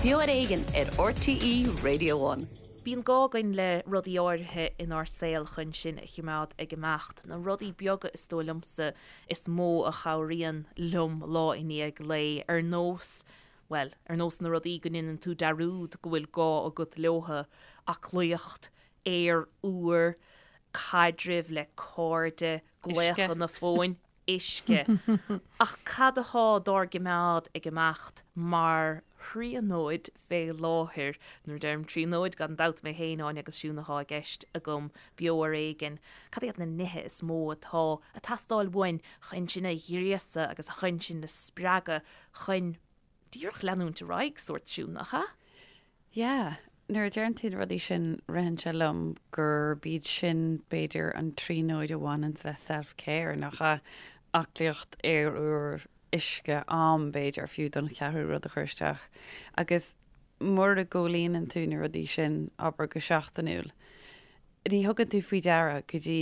Beo ar Éigean ar RTÉ Radio One. Bíonn gá againn le rudaí áirithe inár saol chun sinn a chimeád ag imeacht. Na rudaí beaga is dóigh liomsa is mó a chabhraíonn liom lá i ndiaidh lae, ar nós, bhuel, ar nós na rudaí go ndéanann tú dearúd go bhfuil gá agat leothu, aclaíocht, aer úr, caidrimh le cairde, glaochanna fóin, uisce. Ach cad athá dár gcimeád ag imeacht mar thríonóid fé láthair? Nuair a deirim tríonóid, gan dabht mé féin, Áine agus Siún athá i gceist agam, beo ar éigean. Cad iad na nithe is mó atá a' teastáil uainn chun sinn a ghríosadh agus chun sinn a spreagadh chun díreach leanúint ar aghaidh, sórt Siún, nach ea? Yeah. Nuair a deireann tú na rudaí sin, ritheann sé liom gurb iad sin b'fhéidir an tríonóid a bhaineanns le self-care, nach ea? Aclaíocht, aer úr, uisce, am b'fhéidir fiú don cheathrú rud a chur isteach. Agus mura gcomhlíonann tú na rudaí sin, abair go seachtainiúil, ní thugann tú faoi deara go dtí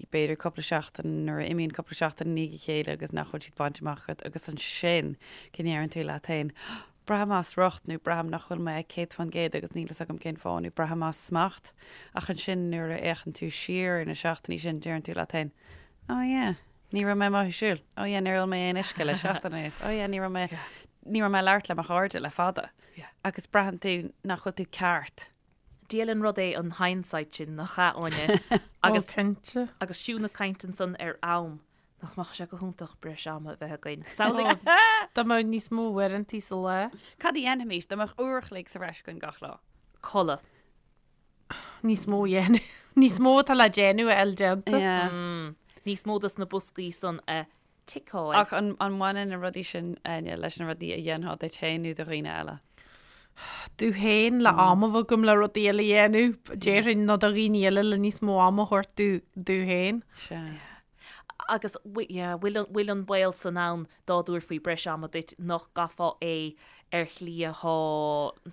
b'fhéidir cúpla seachtain nuair a imíonn cúpla seachtain i ndiaidh a chéile agus nach bhfuil siad bainte amach agat agus ansin go ndeireann tú leat féin braithim as riocht nó braithim nach bhfuil mé ag 100% agus níl fhios agam cén fáth nó braithim as smacht ach ansin nuair a fhéachann tú siar ar na seachtainí sin deireann tú leat féin oh yeah ní raibh mé amuigh ag siúl oh yeah níor ól mé aon uisce le seachtain anuas oh yeah ní raibh mé ní raibh mé ag labhairt le mo chairde le fada agus braitheann tú nach bhfuil tú ceart. Diail an rud é an hindsight sin, nach ea, Áine? Agus, cinnte. Agus Siún ag caint ansan ar am, nach mbeadh sé go hiontach breis ama a bheith againn. Samhlaigh. Dá mbeadh níos mó uaireantaí sa lá. Cad a dhéanfaimis dá mbeadh uair a chloig sa bhreis againn gach lá? Codladh. Níos mó a dhéanamh. Níos mó atá le déanamh a fháil déanta. Yeah. Níos mó dos na boscaí san a ticeáil. Ach an mbaineann na rudaí sin, Áine, leis na rudaí a dhéanfá duit féin nó do dhaoine eile? Domh féin, le am a bheith agam le rudaí eile a dhéanamh, déarfainn, nó do dhaoine eile le níos mó ama a thabhairt domh féin. Sea. Agus yeah, bhfuil an baol san ann dá dtabharfaí breis ama duit nach gcaithfeá é ar shlí athá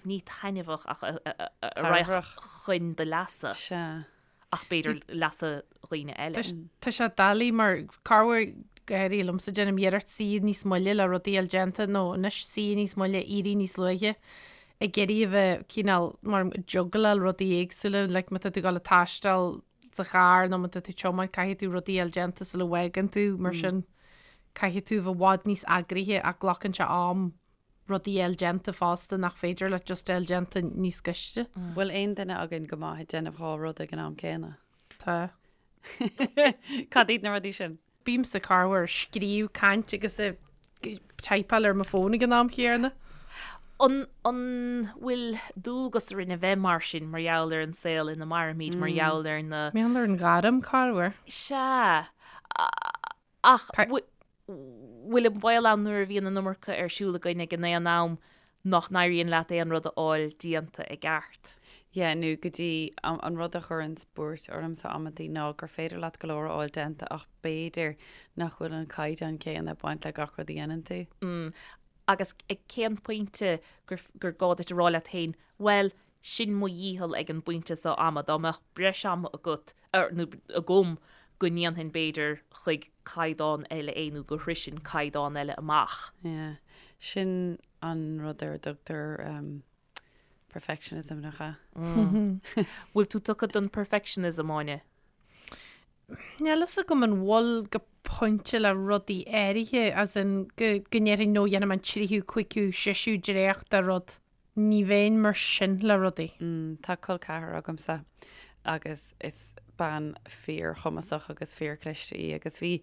ní taitneamhach ach a raghadh chun do leasa? Sea. ach b'fhéidir leasa dhaoine eile. Tá sé doiligh mar corruair go háirithe liomsa déanaim iarracht suí níos moille le rudaí a fháil déanta nó anois suí níos moille éirí níos luaithe ag iarraidh a bheith cineál mar juggleáil rudaí éagsúla like má tá tú ag dul ag taisteal sa charr nó má tá tú ag tiomáint caithfidh tú rudaí a fháil déanta sula bhfágann tú mar sin caithfidh tú a bheith i bhfad níos eagraithe ach glacann sé am rudaí a fháil déanta fosta nach féidir leat just a fháil déanta níos gaiste. Bhfuil aon duine againn go maith ag déanamh dhá rud ag an am céanna? Tá. Cad iad na rudaí sin? Bímse corruair ag scríobh, caint agus ag typeáil ar mo fón ag an am chéanna. An an bhfuil dualgas orainn a bheith mar sin mar gheall ar an saol ina mairimid, mar gheall ar na. Mar gheall ar an ghairm, corruair. Sea. Ach bhfuil an baol ann nuair a bhíonn an iomarca ar siúl againn ag an aon am nach n-éiríonn leat aon rud a fháil déanta i gceart? Yeah, nó go dtí an rud a chuireanns buairt ormsa amantaí ná gur féidir leat go leor a fháil déanta ach b'fhéidir nach bhfuil an caighdeán céanna ag baint le gach rud a dhéanann tú. Mm. Agus ag cén pointe gur gur gá duit a rá leat féin, bhuel, sin mo dhícheall ag an bpointe seo ama, dá mbeadh breis ama agat, nó agam, go ndéanfainn b'fhéidir chuig caighdeán eile é nó go shroisfinn caighdeán eile amach. Yeah. Sin an rud ar a dtugtar perfectionism, nach ea? Bhfuil tú tugtha don perfectionism, Áine? Níl fhios agam an bhfuil go pointe le rudaí áirithe, as in go ndéarfainn no dhéanfaidh mé an tríú, cúigiú, seisiú dréacht de rud. Ní bheinn mar sin le rudaí. Tá col ceathrar agamsa agus is bean fíorchumasach agus fíorchliste í agus bhí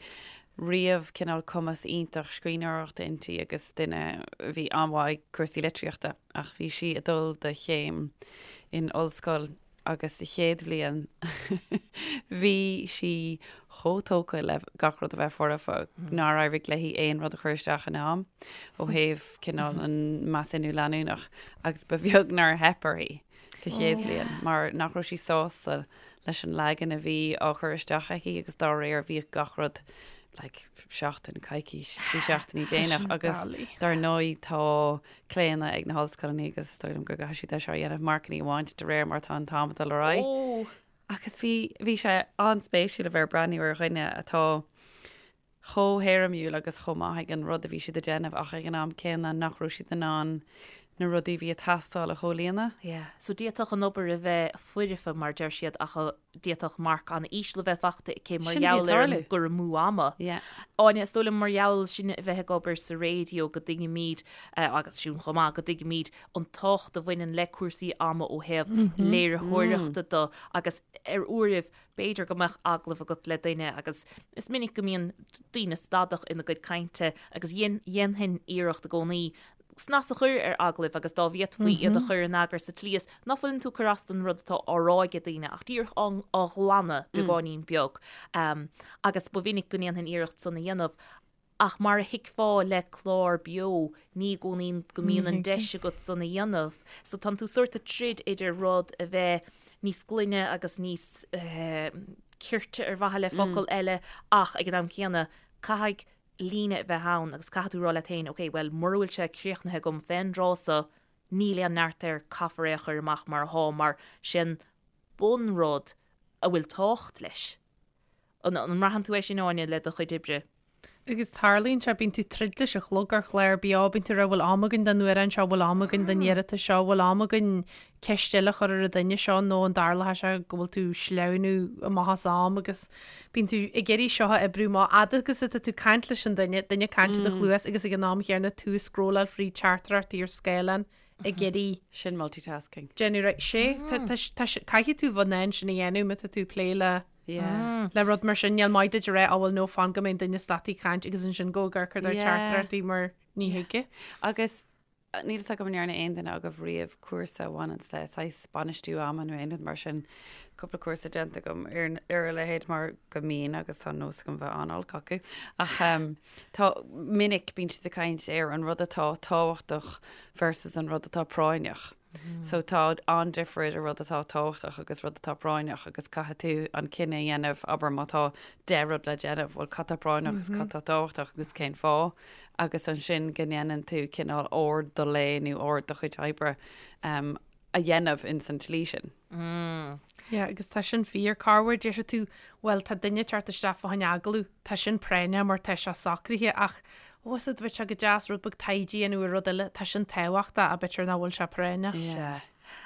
riamh cineál cumas iontach scríbhneoireachta inti agus duine a bhí an-mhaith ag cúrsaí litríochta ach bhí sí ag dul do chéim in ollscoil agus sa chéad bhliain bhí sí chomh tógtha le gach rud a bheith foirfe nár éirigh léi aon rud a chur isteach in am ó thaobh cineál an measúnú leanúnach agus ba bheag nár theip uirthi sa chéad bhliain mar nach raibh sí sásta leis an leagan a bhí á chur isteach aici agus dá réir bhíodh gach rud like seachtain, coicís, trí seachtainí déanach agus dar ndóigh tá claonadh ag na hollscoileanna agus is dóigh liom go gcaithfidh siad é seo a dhéanamh, marcanna a bhaint de réir mar atá an t-am ag dul ar aghaidh. Agus bhí, bhí sé an-spéisiúil a bheith ag breathnú ar dhuine atá chomh héirimiúil agus chomh maith ag an rud a bhí siad ag déanamh ach ag an am céanna nach raibh siad in ann. na rudaí a bhí ag teastáil a chomhlíonadh. Yeah. So d'fhéadfadh an obair a bheith foirfe, mar deir siad, ach d'fhéadfadh marc an-íseal a bheith faighte aici mar Sin a bhí ag gheall ar an tarlú. gcur amú ama. Yeah. Áine, is dóigh liom mar gheall sin a bheith ag obair sa raidió go dtuigimid, agus Siún chomh maith, go dtuigimid an tábhacht a bhaineann le cúrsaí ama ó thaobh léiritheoireachta de agus ar uairibh b'fhéidir go mbeadh agallamh agat le duine agus is minic go mbíonn daoine stadach ina gcuid cainte agus dhéanfainn iarracht i gcónaí snas a chur ar agallaimh agus dá bhféadfaí iad a chur in eagar sa tslí is ná fuileann tú ag cur as don rud atá á rá ag daoine ach díreach á ghlanadh beagáinín beag. Agus ba mhinic go ndéanfainn iarracht san a dhéanamh ach mar a thuigfeá le clár beo ní i gcónaí go mbíonn an deis agat san a dhéanamh. So tánn tú sórt ag troid idir rud a bheith níos glaine agus níos cirte ar mhaithe le focal eile ach ag an am céanna caithfidh líne a bheith ann agus caithfidh tú rá leat féin, ok, bhuel, mura bhfuil sé críochnaithe agam fén dtráth so, níl aon neart air, caithfear é a chur amach mar athá, mar sin bunrud a bhfuil tábhacht leis. An mbraitheann tú é sin, Áine, le do chuid oibre? Agus tarlaíonn sé, bíonn tú troid leis an chlog ar chlár beo, bíonn tú ag rá bhfuil am againn don amhrán seo, bhfuil am againn don iarratas seo, bhfuil am againn ceist eile a chur ar an duine seo nó an dtarlóidh sé go bhfuil tú sleamhnú amach as am agus bíonn tú ag iarraidh seo a oibriú amach fhad agus atá tú ag caint leis an duine, duine ag caint i do chluas agus ag an am chéanna tú ag scrolláil fríd teachtaireachtaí ar scáileán ag iarraidh Sin multitasking. déanamh right sé tá tá tá caithfidh tú bheith in ann sin a dhéanamh má tá tú ag plé le Yeah. le rud mar sin níl maith duit a rá á bhuel no fan go mbeidh an duine stadta ag caint agus ansin go ag amharc ar Yeah. teachtaireachtaí mar ní thig. Agus Níl fhios agam an ndearna aon duine agaibh riamh cúrsa a bhaineanns le saghas bainistiú ama nó aon rud mar sin. Cúpla cúrsa déanta agam ar ar a leithéid mar go mbíonn agus tá nós agam bheith an-olc acu. Ach tá minic bíonn siad ag caint ar an rud atá tábhachtach versus an rud atá práinneach. So tá an-difear idir rud atá tábhachtach agus rud atá práinneach agus caithfidh tú an cinneadh a dhéanamh, abair má tá 10 rud le déanamh, bhuel cad tá práinneach agus cad tá tábhachtach agus cén fáth agus ansin go ndéanann tú cineál ord do lae nó ord do chuid oibre a dhéanamh ins an tslí sin. Yeah, agus tá sin fíor. Corruair déarfaidh tú, bhuel, tá duine ag teacht isteach fá choinne agallamh, tá sin práinneach mar tá sé socraithe ach, ó, is bheadh sé go deas rud beag taighde a dhéanamh ar rud eile, tá sin tábhachtach, ach b'fhéidir nach bhfuil sé práinneach. Sea.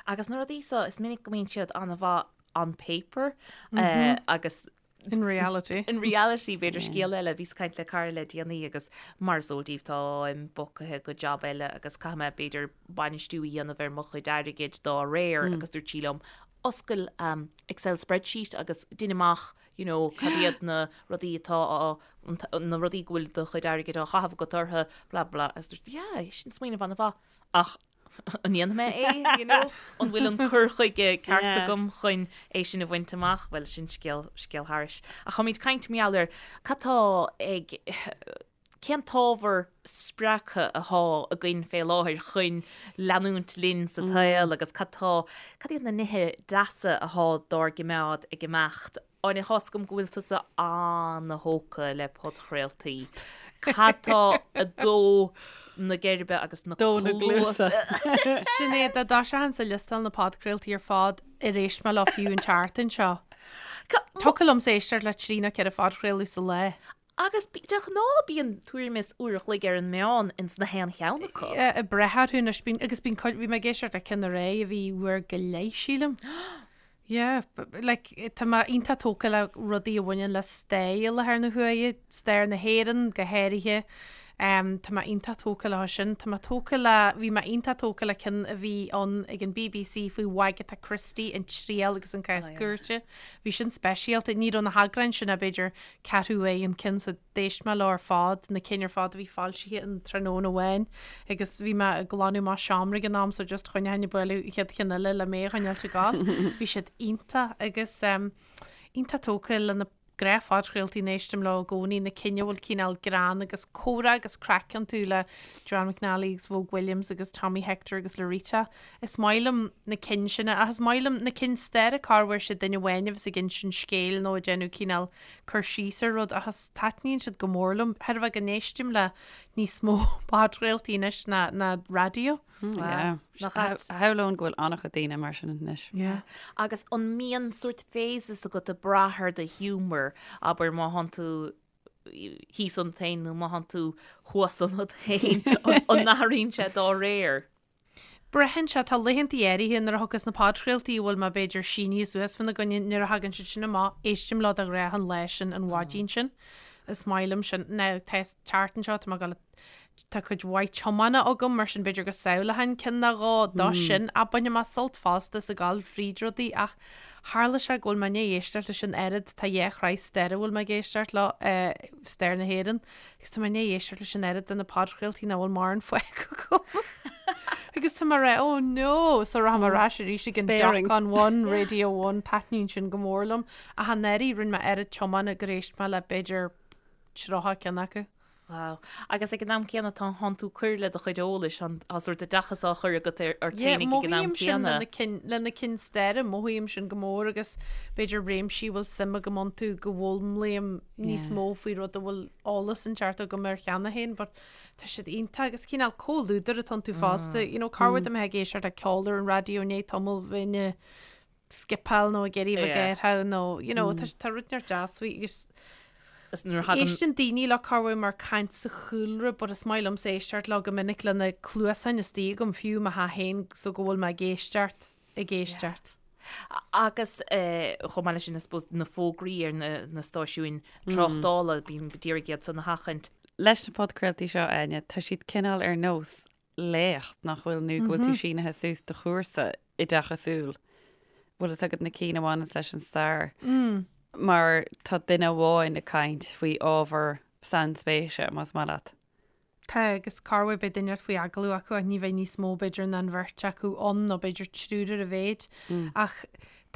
Agus na rudaí so, is minic go mbíonn siad an-mhaith on paper agus In reality. In reality, b'fhéidir scéal eile, bhíos ag caint le cara le déanaí agus mar is eol daoibh táim bogtha go jab eile agus caithfidh mé b'fhéidir bainistiú a dhéanamh ar mo chuid airgid dá réir agus dúirt sí liom oscail Excel spreadsheet agus dein amach you know cad iad na rudaí atá á na rudaí go bhfuil do chuid airgid á chaitheamh agat orthu blah blah agus dúirt yeah sin smaoineamh an-mhaith ach An ndéanfaidh mé é, you know? An bhfuil an cur chuige ceart Yeah. agam chun é sin a bhaint amach? Bhuel, sin scéal, scéal thairis. Ach táimid ag caint mar gheall ar cad tá ag, cén t-ábhar spreagtha athá againn fé láthair chun leanúint linn sa tsaol agus cad tá, cad iad na nithe deasa athá dár gcimeád ag imeacht? Áine, tá's agam go bhfuil tusa an-thógtha le podchraoltaí. Cad tá ag dó na geirbe agus na Dó na cluasa? gcluasa. Sin é, dá dtoiseochainn ag liostáil na podchraoltaí ar fad ar éist mé leo fiú an tseachtain seo. Thiocfadh liomsa éisteacht le trí nó ceithre phodchraoladh sa lá. Agus de ghnáth bíonn tuairim is uair a chloig ar an meán ins na haon cheann acu. Ag brath orthu anois, bíonn, agus bíonn cuid, bhí mé ag éisteacht le ceann aréir a bhí uair go leith, sílim. Yeah, like, tá mé iontach tógtha le rudaí a bhaineann le stair i láthair na huaire, stair na hÉireann go háirithe. Um, tá mé iontach tógtha leo sin. Tá mé tógtha le, bhí mé iontach tógtha le ceann a bhí ann ag an BBC faoi Wagatha Christie, an triail agus an cás cúirte. Bhí sin speisialta. Ní raibh na heagráin sin ach b'fhéidir ceathrú uair an ceann so D'éist mé leo ar fad, na cinn ar fad a bhí foilsithe in tráthnóna amháin agus bhí mé ag glanadh mo seomra ag an am so just choinneochainn ag bualadh an chéad cheann eile le mé a choinneáilt ag gabháil. Bhí siad iontach agus iontach tógtha le na gnáth-phodchraoltaí a n-éistim leo i gcónaí, na cinn a bhfuil cineál greann agus comhrá agus craic iontu le Joanne McNally agus Vogue Williams agus Tommy Hector agus Laurita. Is maith liom na cinn sin ach is maith liom na cinn staire corruair sé duine amháin a bheas ag insint scéil nó ag déanamh cineál cur síos ar rud ach is taitníonn siad go mór liom. Chreidfeá go n-éistim le níos mó podchraoltaí anois ná ná raidió. Yeah. Nach ait? Shamhlóinn go bhfuil an-chuid daoine mar sin anois. Yeah. Agus an mbíonn sórt phases agat ag brath ar do ghiúmar, abair má thánn tú thíos ionat féin nó má thánn tú thuas ionat féin, an n-athraíonn sé dá réir? Braitheann sé, tá laethantaí áirithe nuair a thiocfas na podchraoltaí a bhfuil mé b'fhéidir sínithe suas fána gcoinne, nuair a thagann siad sin amach, éistim leo de ghnáth an lá sin, an mhaidin sin. Is maith liom sin. Now, tá an tseachtain seo, tá mé ag dul, tá cuid mhaith tiomána agam, mar sin b'fhéidir go samhlóchainn ceann nó dhó dó sin, ach bainfidh mé sult fosta as ag dul fríd rudaí ach tharla sé go bhfuil mé i ndiaidh éisteacht leis an oiread, tá dhá shraith staire a bhfuil mé ag éisteacht leo, stair na hÉireann, Agus tá mé i ndiaidh éisteacht leis an oiread de na podchraoltaí nach bhfuil mórán fágtha agam. Agus tá mé ag rá, oh no! So rachaidh mé ar ais arís ag an Sparing. Doc on One, Radio One, taitníonn sin go mór liom. Ach anuraidh rinne mé oiread tiomána gur éist mé le b'fhéidir 30 ceann acu. Wow. Agus ag an am céanna tá tánn tú ag cur le do chuid eolais, tá sórt oideachas á chur agat ar ort Yeah, féinig ag an am mothaím sin céanna. le na cinn, le na cinn staire, mothaím sin go mór agus b'fhéidir réimsí a bhfuil suim agam iontu go bhfoghlaimím níos mó faoi rud a bhfuil eolas inteacht agam air cheana féin but tá siad iontach agus cineál comhluadar atá iontu fosta you know corruair dá mbeifeá ag éisteacht le ceol ar an raidió i ndiaidh tamaill bheinn ag skipeáil nó ag iarraidh a bheith ag nó you know tá tá rud inteacht deas faoi agus Is nuair a thagann Éisteann daoine leo corruair mar caint sa chúlra but is maith liomsa éisteacht leo go minic le na cluasáin istigh agam fiú i mo theach féin so go bhfuil mé ag éisteacht ag éisteacht. Agus chomh maith leis sin, I suppose, na fógraí ar na stáisiúin tráchtála, bím d'iarraidh iad san a sheachaint. Leis na podchraoltaí seo, Áine, tá siad cineál ar nós léacht, nach bhfuil, nó go bhfuil tú sínithe suas do chúrsa oideachasúil. Bhfuil fhios agat na cinn a bhaineanns leis an stair? Mar tá duine amháin ag caint faoi ábhar sainspéise, más maith leat. Tá, agus corruair beidh duine faoi agallamh acu ach ní bheidh níos mó b'fhéidir ná an bheirt acu ann nó b'fhéidir triúr ar a mhéid. Ach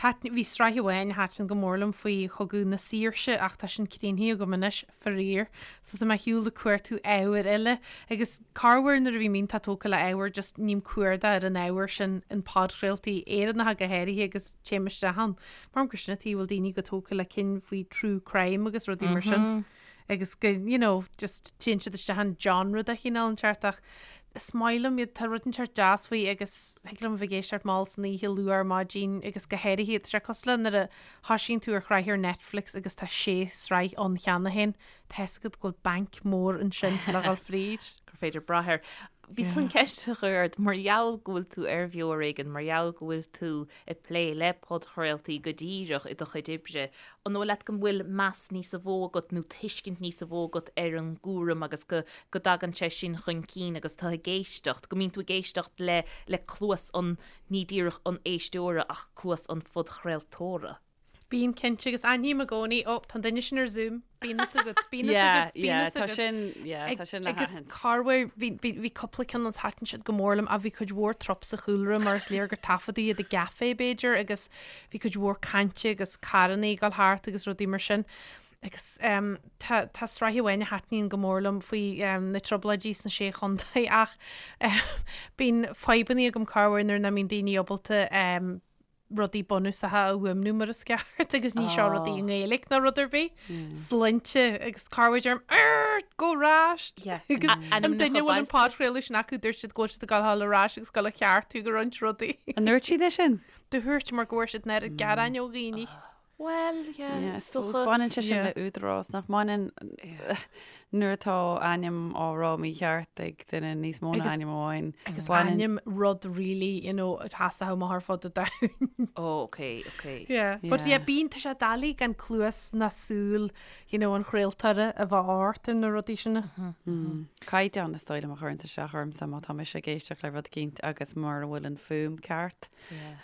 thaitin, bhí sraith amháin a thaitin go mór liom faoi Chogadh na Saoirse ach tá sin críochnaithe agam anois, faraor. So tá mé ar shiúl ag cuartú ábhair eile agus corruair nuair a bhím iontach tógtha le ábhar just ním cuardach ar an ábhar sin in podchraoltaí Éireannacha go háirithe agus téim isteach ann. Mar gur sin an tuige a bhfuil daoine chomh tógtha le cinn faoi true crime agus rudaí mar sin. agus go, you know, just téann siad isteach in genre de chineál inteacht ach is maith liom iad, tá rud inteacht deas faoi agus thig liom a bheith ag éisteacht mall san oíche, luath ar maidin agus go háirithe, tá sé cosúil le nuair a thoisíonn tú ar shraith ar Netflix agus tá sé sraith ann cheana féin, tá fhios agat go bhfuil banc mór ansin le dhul fríd. gur féidir brath air. Bhíos chun ceist a chur ort, mar gheall go bhfuil tú ar Bheo Ar Éigean, mar gheall go bhfuil tú ag plé le podchraoltaí go díreach i do chuid oibre, an dóigh leat go bhfuil meas níosa mhó agat nó tuiscint níosa mhó agat ar an gcúram agus go go dtagann sé sin chun cinn agus tú ag éisteacht, go mbíonn tú ag éisteacht le le cluas an, ní díreach an éisteora ach cluas an phodchraoltóra? Bíonn cinnte agus aithním i gcónaí, ó, tá an duine sin ar Zoom, bíonn fhios agat, bíonn fhios agat, bíonn fhios tá agat. sin, yeah, tá sin le Agus haithint. corruair, bhí, bhí, bhí cúpla ceann ann thaitin siad go mór liom ach bhí cuid mhór trup sa chúlra mar is léir gur taifeadadh iad i gcaife b'fhéidir agus bhí cuid mhór cainte agus carrannaí ag dul thart agus rudaí mar sin. Agus um, tá, tá sraith amháin a thaitníonn go mór liom faoi um, na trioblóidí sna sé chontae ach um, bíonn fadhbanna agam corruair nuair nach mbíonn daoine ábalta um, rudaí bunúsacha a fhuaimniú mar is ceart agus ní seo rudaí i nGaeilge ná rud ar bith. Sloinnte agus corruair deirim Arr! Gabh ar ais! Agus an duine a bhfuil an podchraoladh sin acu dúirt siad go bhfuil siad ag gabháil ar ais agus gabháil a cheartú go roinnt rudaí. An ndúirt siad é sin? Dúirt mar go bhfuair siad an oiread gearáin ó dhaoine. Bhuel, yeah, Yeah, is suppose dócha. baineann sé sin Yeah. le údarás nach mbaineann nuair atá ainm á rá mícheart ag duine níos mó ná Agus- ainm amháin. Agus Baineann- ainm rud really, you know, atá amach ar fud an domhain. Oh, okay, okay. Yeah. But Yeah. yeah, bíonn tá sé doiligh gan cluas ná súil, you know, an chraoltóra a bheith ort ar na rudaí sin. Caighdeán is dóigh liom a chuireann isteach ormsa má tá mise ag éisteacht le rud eicínt agus mura bhfuil an fuaim ceart,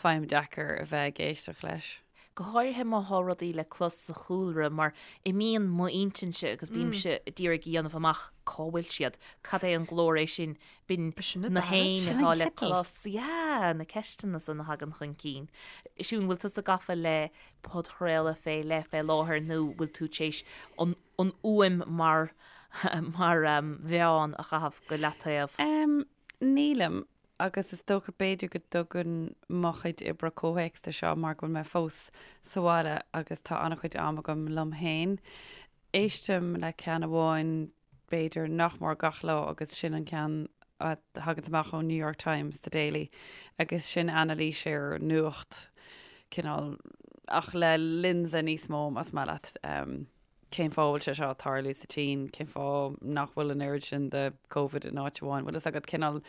faighim deacair a bheith ag éisteacht leis. Go háirithe má thá rudaí le clos sa chúlra mar imíonn m'intinnse agus bímse d'iarraidh a dhéanamh amach cá bhfuil siad, cad é an glór é sin, b'in na héin atá le clos, yeah, na ceisteanna san a thagann chun cinn. Siún, bhfuil tusa gafa le podchraoladh fé leith fé láthair nó bhfuil tú tar éis an an fhuaim mar mar mheán a chaitheamh go leataobh? Nílim. Agus is dócha b'fhéidir go dtugann mo chuid oibre comhthéacs do seo mar go bhfuil mé fós sa bhaile agus tá an-chuid am agam liom féin. Éistim le ceann amháin b'fhéidir nach mór gach lá agus sin an ceann a thagann amach ón New York Times, The Daily, agus sin anailís ar nuacht cineál ach le lionsa níos mó más maith leat. Cén fáth a bhfuil sé seo ag tarlú sa tSín? Cén fáth nach bhfuil an oiread sin de Covid in áit amháin? Bhfuil fhios agat cineál.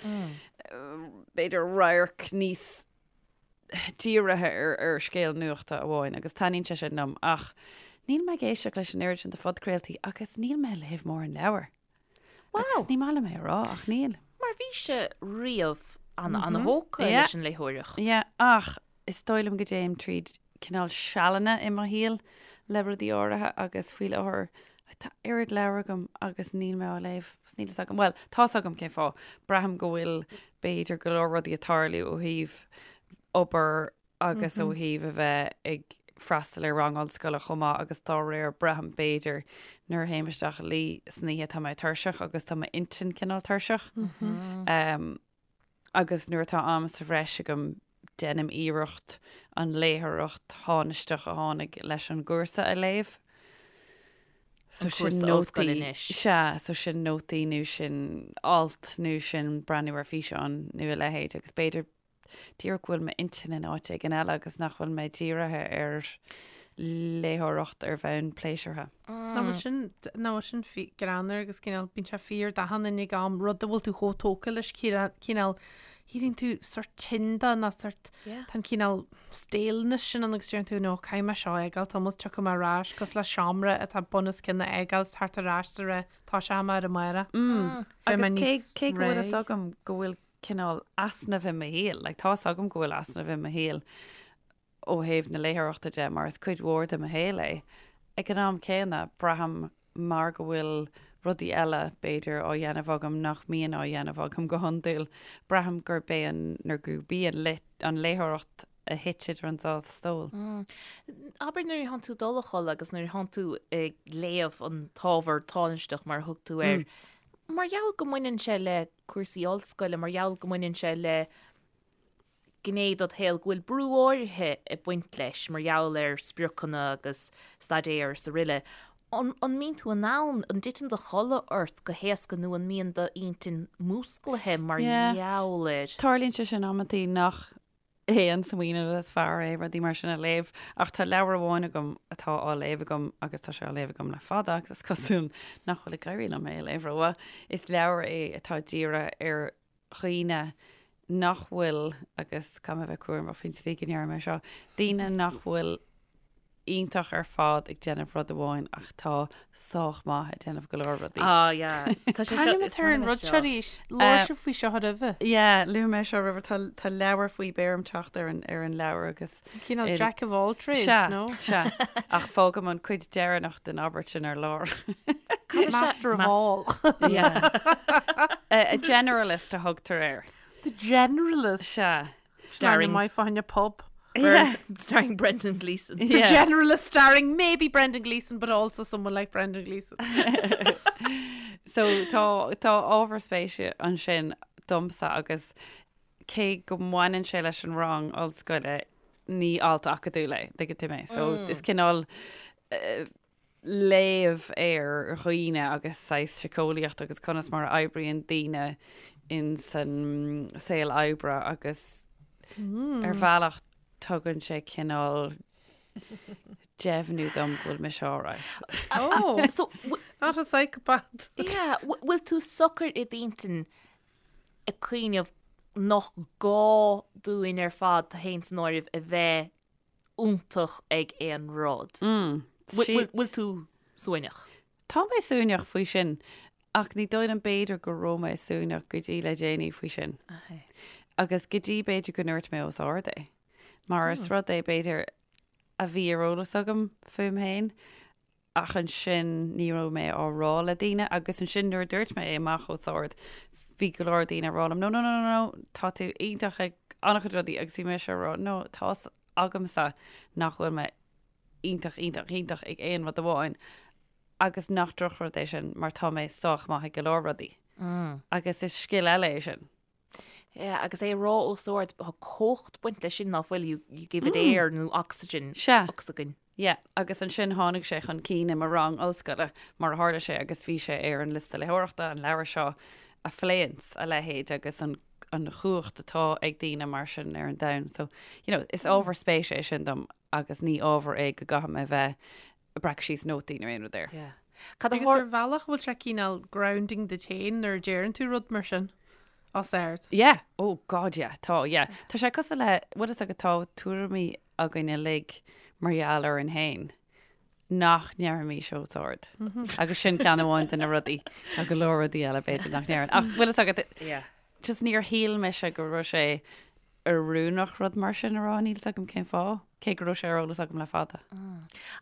b'fhéidir radharc níos dírithe ar ar scéal nuachta amháin agus taitníonn sé sin liom ach níl mé ag éisteacht leis an oiread sin de phodchraoltaí agus níl mé ag léamh mórán leabhar. Wow. Agus ní maith liom é a rá ach níl. Mar bhí sé riamh an-an-thógtha Yeah. leis an léitheoireacht. Yeah, ach is dóigh liom go dtéim tríd cineál sealanna i mo shaol le rudaí áirithe agus faoi láthair tá oiread leabhar agam agus níl mé á léamh. Agus níl fhios agam, bhuel, tá's agam cén fáth. Braithim go bhfuil b'fhéidir go leor rudaí ag tarlú ó thaobh obair agus ó thaobh a bheith ag freastal ar rang ollscoile chomh maith agus dá réir braithim b'fhéidir nuair a théim isteach a luí san oíche tá mé tuirseach agus tá m'intinn cineál tuirseach. Agus nuair atá am sa bhreis agam déanaim iarracht an léitheoireacht thánaisteach a tháinig leis an gcúrsa a léamh. So sin nótaí, sea, so sin nótaí nó sin alt nó sin breathnú ar físeán nó a leithéid agus b'fhéidir díreach go bhfuil m'intinn in áit éigin eile agus nach bhfuil mé dírithe ar léitheoireacht ar bhonn pléisiúrtha. Ná bhfuil sin, ná bhfuil sin greannmhar agus cineál, bíonn sé fíor d'achan duine ag am, rud a bhfuil tú chomh tógtha leis, cineál, éiríonn tú sort tinn de nó sort, tá an cineál staleness sin ann agus deireann tú no, caithfidh mé seo a fhágáil, tamall tiocfaidh mé ar ais, cosúil le seomra atá bun os cionn a fhágáil is teacht ar ais sa ré, tá sé am ar an máire. Beidh mé Agus cé, níos cé go bhfuil fhios réidh. agam go bhfuil cineál easnamh i mo shaol, like tá's agam go bhfuil easnamh i mo shaol ó thaobh na léitheoireachta de mar is cuid mhór de mo shaol é. Ag an am céanna, braithim mar go bhfuil rudaí eile, b'fhéidir, á dhéanamh agam nach mbíonn á dhéanamh agam go hiondúil, braithim gurb é an, nó gurb í an an léitheoireacht a thit idir an dá stól. Abair nuair atánn tú ag dul a chodladh agus nuair atánn tú ag léamh an t-ábhar tánaisteach mar a thug tú air, mar gheall go mbaineann sé le cúrsaí ollscoile, mar gheall go mbaineann sé le gné dod shaol go bhfuil brú áirithe ag baint leis mar gheall ar spriocanna agus staidéar is aroile. An mbíonn tú in ann, an dtiteann do chodladh ort go héasca nó an mbíonn d'intinn músclaithe mar gheall air? Tarlaíonn sé sin amantaí nach é an smaoineamh is fearr é rudaí mar sin a léamh ach tá leabhar amháin agam atá á léamh agam agus tá sé á léamh agam le fada agus is cosúil nach bhfuil ag éirí liom é a léamh rómhaith. Is leabhar é atá dírithe ar dhaoine nach bhfuil, agus caithfidh mé a bheith cúramach faoin tslí go ndeirim é seo, daoine nach bhfuil iontach ar fad ag déanamh rud amháin ach tá sách maith ag déanamh go leor rudaí. Ah, yeah. Tá sé seo, is ar an rud seo arís. Labhair sibh faoi seo roimhe. Yeah, luaigh mé seo roimhe. Tá, tá leabhar faoi, beidh orm teacht ar an, ar an leabhar agus. Cineál Jack of all trades, Sea, no? sea. Ach fágaim an cuid deireanach den abairt sin ar lár. Master of all. Yeah. A generalist a thugtar air. The generalist. Sea. Starring my fáinne pub. Yeah. Starring Brendan Gleeson. The generalist starring maybe Brendan Gleeson but also someone like Brendan Gleeson. So tá tá ábhar spéise ansin domsa agus cé go mbaineann sé leis an rang ollscoile, ní alt acadúil é, tuigeann tú mé. So is cineál léamh ar dhaoine agus saghas síceolaíocht agus conas mar a oibríonn daoine in san saol oibre agus ar bhealach tugann sé cineál deimhniú dom go bhfuil mise alright. Oh, So, not a psychopath. yeah, bhfuil tú socair i d'intinn ag cuimhneamh nach gá dúinn ar fad, tú féin san áireamh, a bheith iontach ag aon rud. Bhfuil tú suaimhneach? Tá mé suaimhneach faoi sin, ach ní dóigh liom b'fhéidir go raibh mé suaimhneach go dtí le déanaí faoi sin. Agus go dtí b'fhéidir go ndúirt mé os ard é. Mar is rud é b'fhéidir a bhí ar eolas agam fúm féin, ach ansin ní raibh mé á rá le daoine agus ansin nuair a dúirt mé é amach os ard bhí go leor daoine ag rá liom no no no no no tá tú iontach ag an-chuid rudaí agus bhí mise ag rá no tá's agamsa nach bhfuil mé iontach iontach iontach ag aon rud amháin agus nach drochrud é sin mar tá mé sách maith ag go leor rudaí. Agus is scil eile é sin. Yeah, agus é a rá os ard, tá cumhacht ag baint leis sin ná fuil, you, you give it air nó oxygen, Sea. ocsaigin. Yeah, agus ansin tháinig sé chun cinn i mo rang ollscoile, mar a tharla sé, agus bhí sé ar an liosta léitheoireachta, an leabhar seo a phléanns a leithéid agus an an chumhacht atá ag daoine mar sin ar an domhan. So, you know, is ábhar spéise é sin dom agus ní ábhar é go gcaithfidh mé bheith ag breacadh síos nótaí nó aon rud air. Yeah. Cad a Agus ar bhealach bhfuil sé cineál grounding duit féin nuair a deireann tú rud mar sin? Os ard. Yeah, oh God yeah, tá, yeah. Tá sé cosúil le, bhfuil fhios agat tá tuairimí againn uilig mar gheall orainn féin nach ndéarfaimis os ard. Agus sin ceann amháin de na rudaí. Tá go leor rudaí eile b'fhéidir nach ndéarfainn. Ach bhfuil fhios agat, Yeah. just níor shíl mise go raibh sé oiriúnach rud mar sin a rá, níl fhios agam cén fáth, cé go raibh sé ar eolas agam le fada.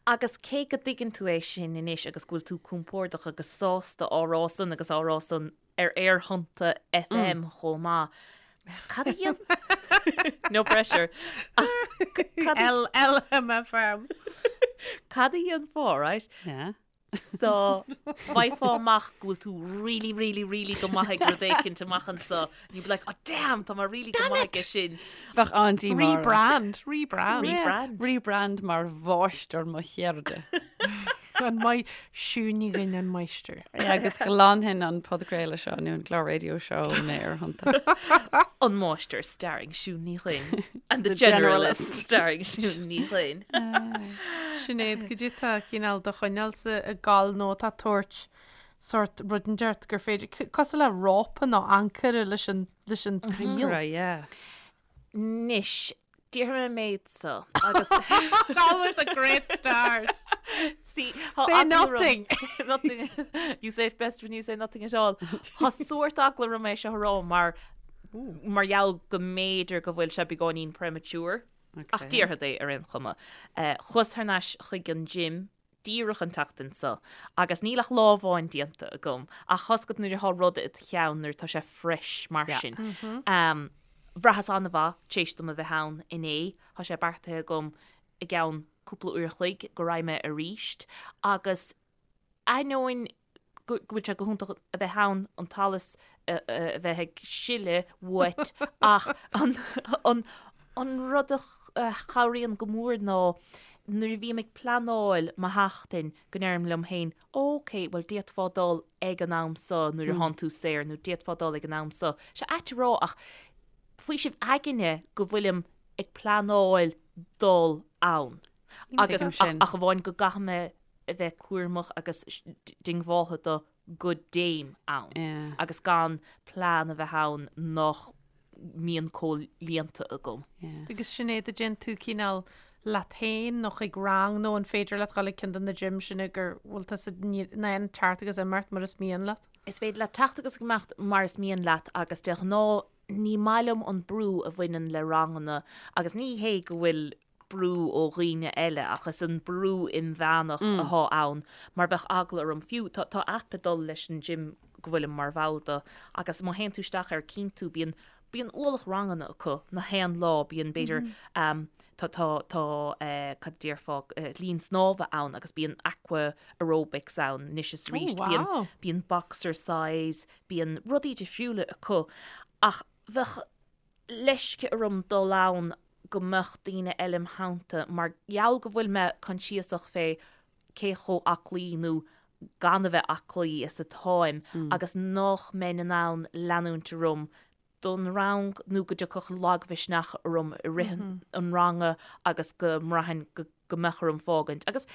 Agus cé go dtuigeann tú é sin anois agus go bhfuil tú compordach agus sásta á rá san agus á rá san ar Aerthonnta FM chomh maith, cad a dhéan... No pressure. Ach cad a... LLMFM. Cad a dhéanfá, right? Yeah. Dá bhfaighfeá amach go bhfuil tú really, really, really go maith ag rud éicint amach anseo, and you'd be like, oh damn, tá mé really go maith aige sin. Bheadh an-díomá orm. Rebrand, rebrand. Rebrand. Rebrand mar mháistir mo cheirde. An maith, Siún Ní Dhuinn an máistir. Agus ghlanfainn an podchraoladh seo nó an clár raidió seo ó na hAerthonnta. An máistir starring Siún Ní Dhuinn and the generalist starring Siún Ní Dhuinn. Sinéad, cad é atá cineál do choinneáilsa ag gabháil nó atá ag tabhairt sórt rud inteacht gur féidir, cosúil le rópa nó ancaire leis an, leis an tsaol. Right, yeah. Anois, déarfaidh mé an méid so agus. Always a great start. See, tá Say eagla orm- nothing. Nothing. You say it best when you say nothing at all. Tá sórt eagla orm é seo a rá mar mar gheall go mb'fhéidir go bhfuil sé beagáinín premature. Ach déarfad é ar aon chuma. Chuas thar n-ais chuig an gym díreach an tseachtain seo agus níl ach lá amháin déanta agam ach tá's agat nuair atá rud i do cheann nuair atá sé fresh mar sin. Bhraitheas an-mhaith tar éis dom a bheith ann inné. Tá sé beartaithe agam i gceann cúpla uair a chloig go raghaidh mé aríst agus ainneoin go bhfuil sé go hiontach a bheith ann an t-allas a bheith ag sileadh uait ach an rud a chabhraíonn go mór ná nuair a bhím ag pleanáil mo sheachtain go ndeirim liom féin ok bhuel d'fhéadfá dul ag an am so nuair a thánn tú saor nó d'fhéadfá dul ag an am so. Sé ait a rá ach faoiseamh aigne go bhfuilim ag pleanáil dul ann agus ach amháin go gcaithfidh mé a bheith cúramach agus diongbháltha do go dtéim ann agus gan plean a bheith ann nach mbíonn comhlíonta agam. Agus Sinéad, an dtéann tú cineál leat féin nó chuig rang nó an féidir leat dul ag ceann de na gyms sin go bhfuil tusa in ann teacht agus imeacht mar is mian leat? Is féidir leat teacht agus imeacht mar is mian leat agus de ghnáth ní maith liom an brú a bhaineann le ranganna agus ní hé go bhfuil brú ó dhaoine eile ach is an brú inmheánach athá ann mar bheadh eagla orm fiú tá tá aip ag dul leis an gym go bhfuilim mar bhall de agus má théann tú isteach air cíonn tú bíonn bíonn ualach ranganna acu na haon lá bíonn b'fhéidir ehm tá tá tá eh cad déarfá eh linn snámha ann agus bíonn aqua aerobics ann anois is arís Oh bíonn wow. bíonn boxercise bíonn rudaí difriúla acu ach bheadh leisce orm dul ann go mbeadh daoine eile im theannta mar gheall go bhfuil mé coinsiasach fé cé chomh aclaí nó gan a bheith aclaí is atáim agus nach mbeinn in ann leanúint orm don rang nó go dtiocfadh lagmhisneach orm i rith an ranga agus go mbraithfinn go go mbeadh orm fágaint. Agus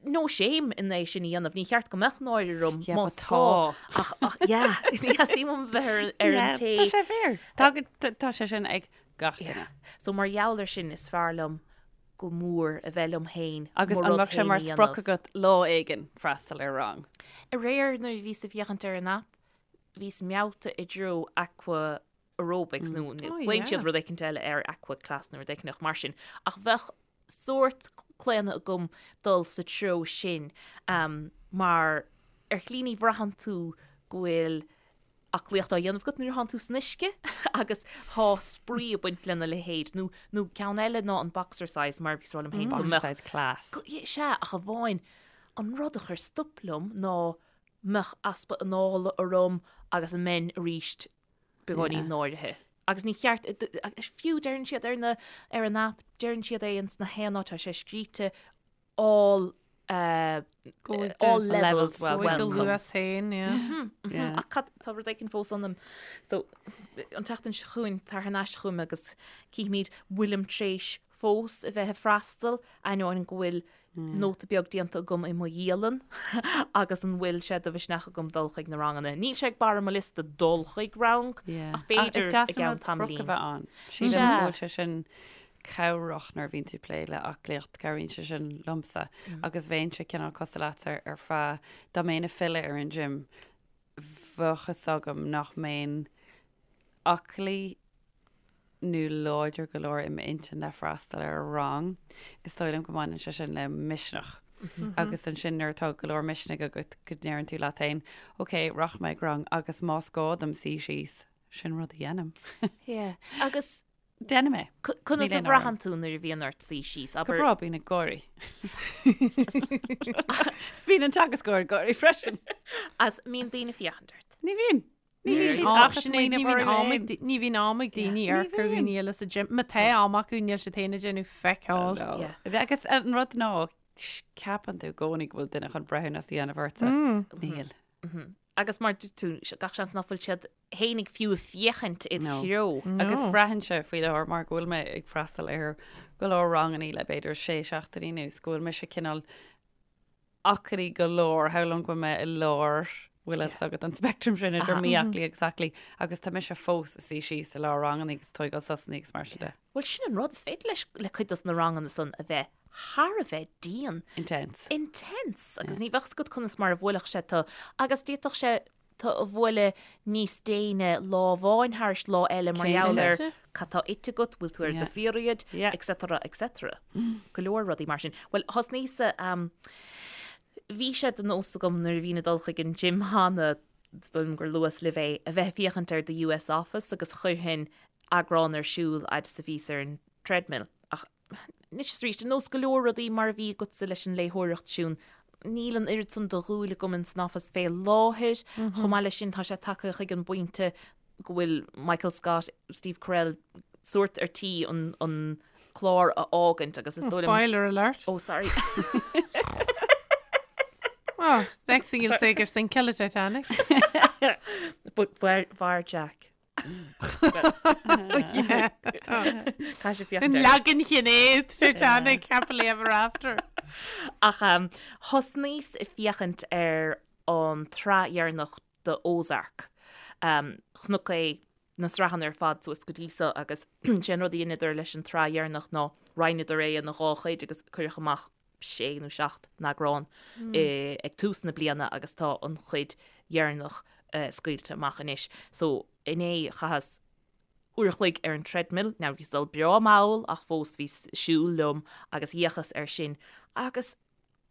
no shame in é sin a dhéanamh, ní cheart go mbeadh náire orm Yeah, más but gá. tá. Ach, ach, yeah, ní theastaíonn uaim bheith ar, ar an Yeah, té. Tá sé fíor. Tá, tá, tá sé sin ag gach duine. So mar gheall ar sin is fearr liom go mór a bheith liom féin, Agus mo an rud mbeadh sé féin mar a sprioc dhéanamh. agat lá éigin freastal ar rang? Aréir nuair a bhíos ag féachaint ar an aip, bhíos meallta i dtreo aqua aerobics nó Oh, glaonn siad yeah. rud éicint eile ar aqua class nó rud éicint mar sin. Ach bheadh sórt claonadh agam dul sa treo sin mar ar shlí ní bhraitheann tú go bhfuil aclaíocht á dhéanamh agat nuair atánn tú san uisce agus tá spraoi ag baint lena leithéid nó nó ceann eile ná an boxercise mar bhíos ag rá liom féin go mbeadh Boxercise class. go sea ach amháin an rud a chuir stop liom ná mbeadh easpa anála orm agus an mbeinn arís beagáinín náirithe. Agus ní cheart, fiú deireann siad ar na, ar an aip, deireann siad é ins na haon áit, tá sé scríte all, uh, all levels welcome. welcome. Do luas féin, yeah. Ach cad, tá rud éicint fós ionam. So, an tseachtain seo chugainn, tar thar n-ais chugam agus cífimid bhfuilim tar éis. fós a bheith ag freastal, ainneoin go bhfuil nóta beag déanta agam i mo dhialann agus an bhfuil sé de mhisneach agam dul chuig na ranganna. Níl sé ag barr mo liosta dul chuig rang ach b'fhéidir i gceann tamaillín. A bheith ann. Sílim go bhfuil sé sin cabhrach nuair a bhíonn tú ag plé le aclaíocht, cabhraíonn sé sin liomsa agus bheinnse cineál cosúil leatsa ar feadh dá mbeinn ag filleadh ar an gym bheadh fhios agam nach mbeinn aclaí nó láidir go leor i m'intinn le freastal ar rang. Is dóigh liom go mbaineann sé sin le misneach. Agus ansin nuair atá go leor misnigh agat go ndeireann tú leat féin, ok, rachaidh mé ag rang agus más gá dom suí síos, sin rud a dhéanaim. Yeah. Agus Déanaim é. Conas a bhraitheann tú nuair a bhíonn ort suí síos? Go breá, bím ag gáirí. Is bíonn an teagascóir ag gáirí freisin. Agus an mbíonn daoine ag féachaint ort. Ní bhíonn. Ní bhíonn siad ach ag smaoineamh orthu féin. Ní bhíonn am ag daoine amharc ar dhaoine eile sa gym. Má tá am acu, níl siad féin ag déanamh feck all. Agus an rud ná, ceapann tú i gcónaí go bhfuil duine chun breithiúnas a dhéanamh ortsa. Níl. Agus mar dúirt tú, gach seans nach bhfuil siad fhéinig fiú ag féachaint id threo. Agus braitheann sé faoi láthair mar go bhfuil mé ag freastal ar go leor rangannaí le b'fhéidir sé seachtainí anuas go bhfuil mise cineál aclaí go leor, shamhlóinn go bhfuil mé i lár, bhfuil fhios agat an speictream sin idir mí-aclaí agus aclaí agus tá mise fós ag suí síos i lár rangannaí agus tógáil sosannaí agus mar sin de. Bhuel sin an rud, is féidir leis le cuid dos na ranganna san a bheith thar a bheith dian. Intense. Intense! Agus ní bheadh 's agat conas mar a bhuailfeadh sé tu agus d'fhéadfadh sé tu a bhualadh níos déine lá amháin thairis lá eile mar gheall ar cad tá ite agat, bhfuil tú ar do pheriod, etc etc. Go leor rudaí mar sin. Bhuel, thosnaíos-sa, bhí sé de nós agam nuair a bhínn ag dul chuig an gym cheana, is dóigh liom gur luas libh é, a bheith ag féachaint ar The US Office agus chuirfinn eagrán ar siúl fhad is a bhíos ar an treadmill. Ach anois is arís, ar nós go leor rudaí mar a bhí agatsa leis an léitheoireacht, Siún, níl an oiread san de dhúil agam in san Office fé láthair. Chomh maith leis sin, tá sé tagtha chuig an bpointe go bhfuil Michael Scott, Steve Carell, sórt ar tí an, an clár a fhágaint agus is dóigh liom... Spoiler alert. Oh, sorry. Oh, next thing you'll say gur sinceadh le Titanic. But mhair Jack. An leagan Shinéad Titanic happily ever after. Ach thosnaíos ag féachaint ar an tsraith dheireanach de Ozark. Chonac é na sraitheanna ar fad suas go dtí so agus sé an rud a dheineadar leis an tsraith dheireanach ná roinneadar é ina dhá chuid agus cuireadh amach sé nó seacht n-eagrán ag tús na bliana agus tá an chuid dheireanach scaoilte amach anois. So inné chaitheas uair a chloig ar an treadmill, now bhíos ag dul breá mall ach fós bhíos ag siúl liom agus d'fhéachas air sin agus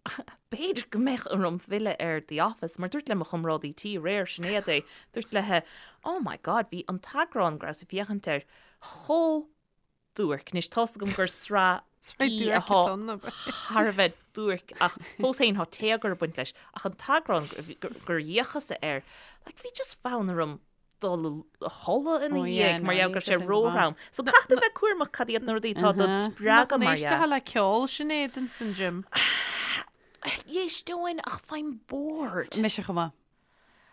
b'fhéidir go mbeadh orm filleadh ar The Office mar dúirt le mo chomrádaí tí aréir, Sinéad é, dúirt léi oh my god bhí an t-eagrán go rabhas ag féachaint air chomh duairc. Anois tá's agam gur sraith í atá thar a bheith duairc ach fós féin tá téagar ag baint leis ach an t-eagrán gur fhéachas-sa air, like bhí just fonn orm dul a chodladh ina dhiaidh mar gheall go raibh sé róthrom. So caithfidh tú bheith cúramach cad iad na rudaí atá dod spreagadh mar dhea. Nach n-éisteofá le ceol Sinéad ins an gym? D'éisteoinn ach faighim bored. Mise chomh maith.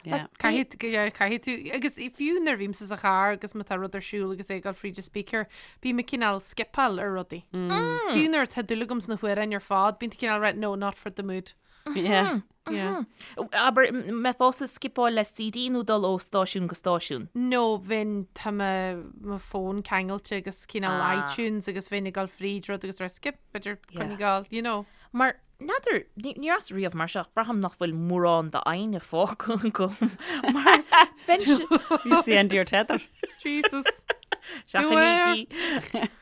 Yeah. Caithfidh tú, yeah, caithfidh tú, agus fiú nuair a bhímse sa charr agus má tá rud ar siúl agus é ag dul fríd an speaker, bím ag cineál skipeáil ar rudaí. Fiú nuair atá dúil agam sna hamhráin ar fad, bíonn tú cineál right, no, not for the mood. Yeah. Yeah. Abair, mbeifeása ag skipeáil le CD nó dul ó stáisiún go stáisiún? No, bheinn, tá mo, mo phone ceangailte agus cineál Ah. iTunes agus bheinn ag dul fríd rud agus rá skip, b'fhéidir Yeah. coinneáil, you know. Mar N'fheadar, ní rabhas riamh mar seo ach braithim nach bhfuil mórán d'fhoighne fágtha agam mar bheinnse... It's the end of your tether. Jesus. Seachnaígí.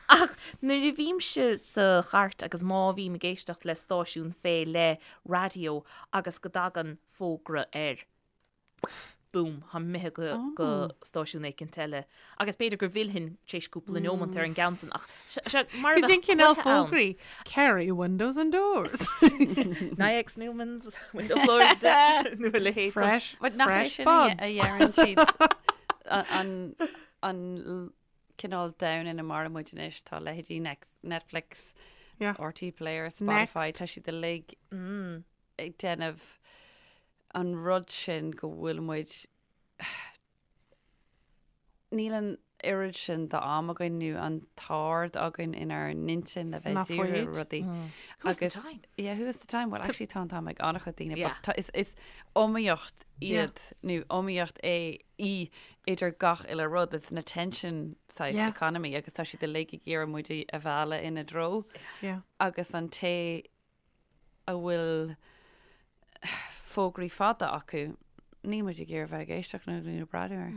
Ach nuair a bhímse sa chairt agus má bhím ag éisteacht le stáisiún fé leith raidió agus go dtagann fógra air, boom, táim imithe go go stáisiún éicint eile. Agus b'fhéidir go bhfillfinn tar éis cúpla neomant ar an gceann san ach sé mar a bheadh cluiche ann. fógraí, Kerry Windows and Doors. Naiex Newmans, Window Floors Decks, nó a leithéid san. Fresh, fresh buds. a dheireann siad an an cineál domhan ina maireann muid anois, tá leithéidí Netflix, RTÉ Player, Spotify, tá siad uilig ag déanamh an rud sin go bhfuil muid níl an. oiread sin d'am againn nó an t-aird againn inár n-intinn le bheith ag díriú ar rudaí. Who has the time? Yeah, who has the time? Well, actually tá an t-am ag an-chuid daoine, but tá, is, is iomaíocht iad nó iomaíocht é í idir gach uile rud. It's an attention saghas economy agus tá siad uilig ag iarraidh muid a mhealladh ina dtreo. Agus an té a bhfuil fógraí fada acu, níl muid ag iarraidh bheith ag éisteacht nó ag breathnú air.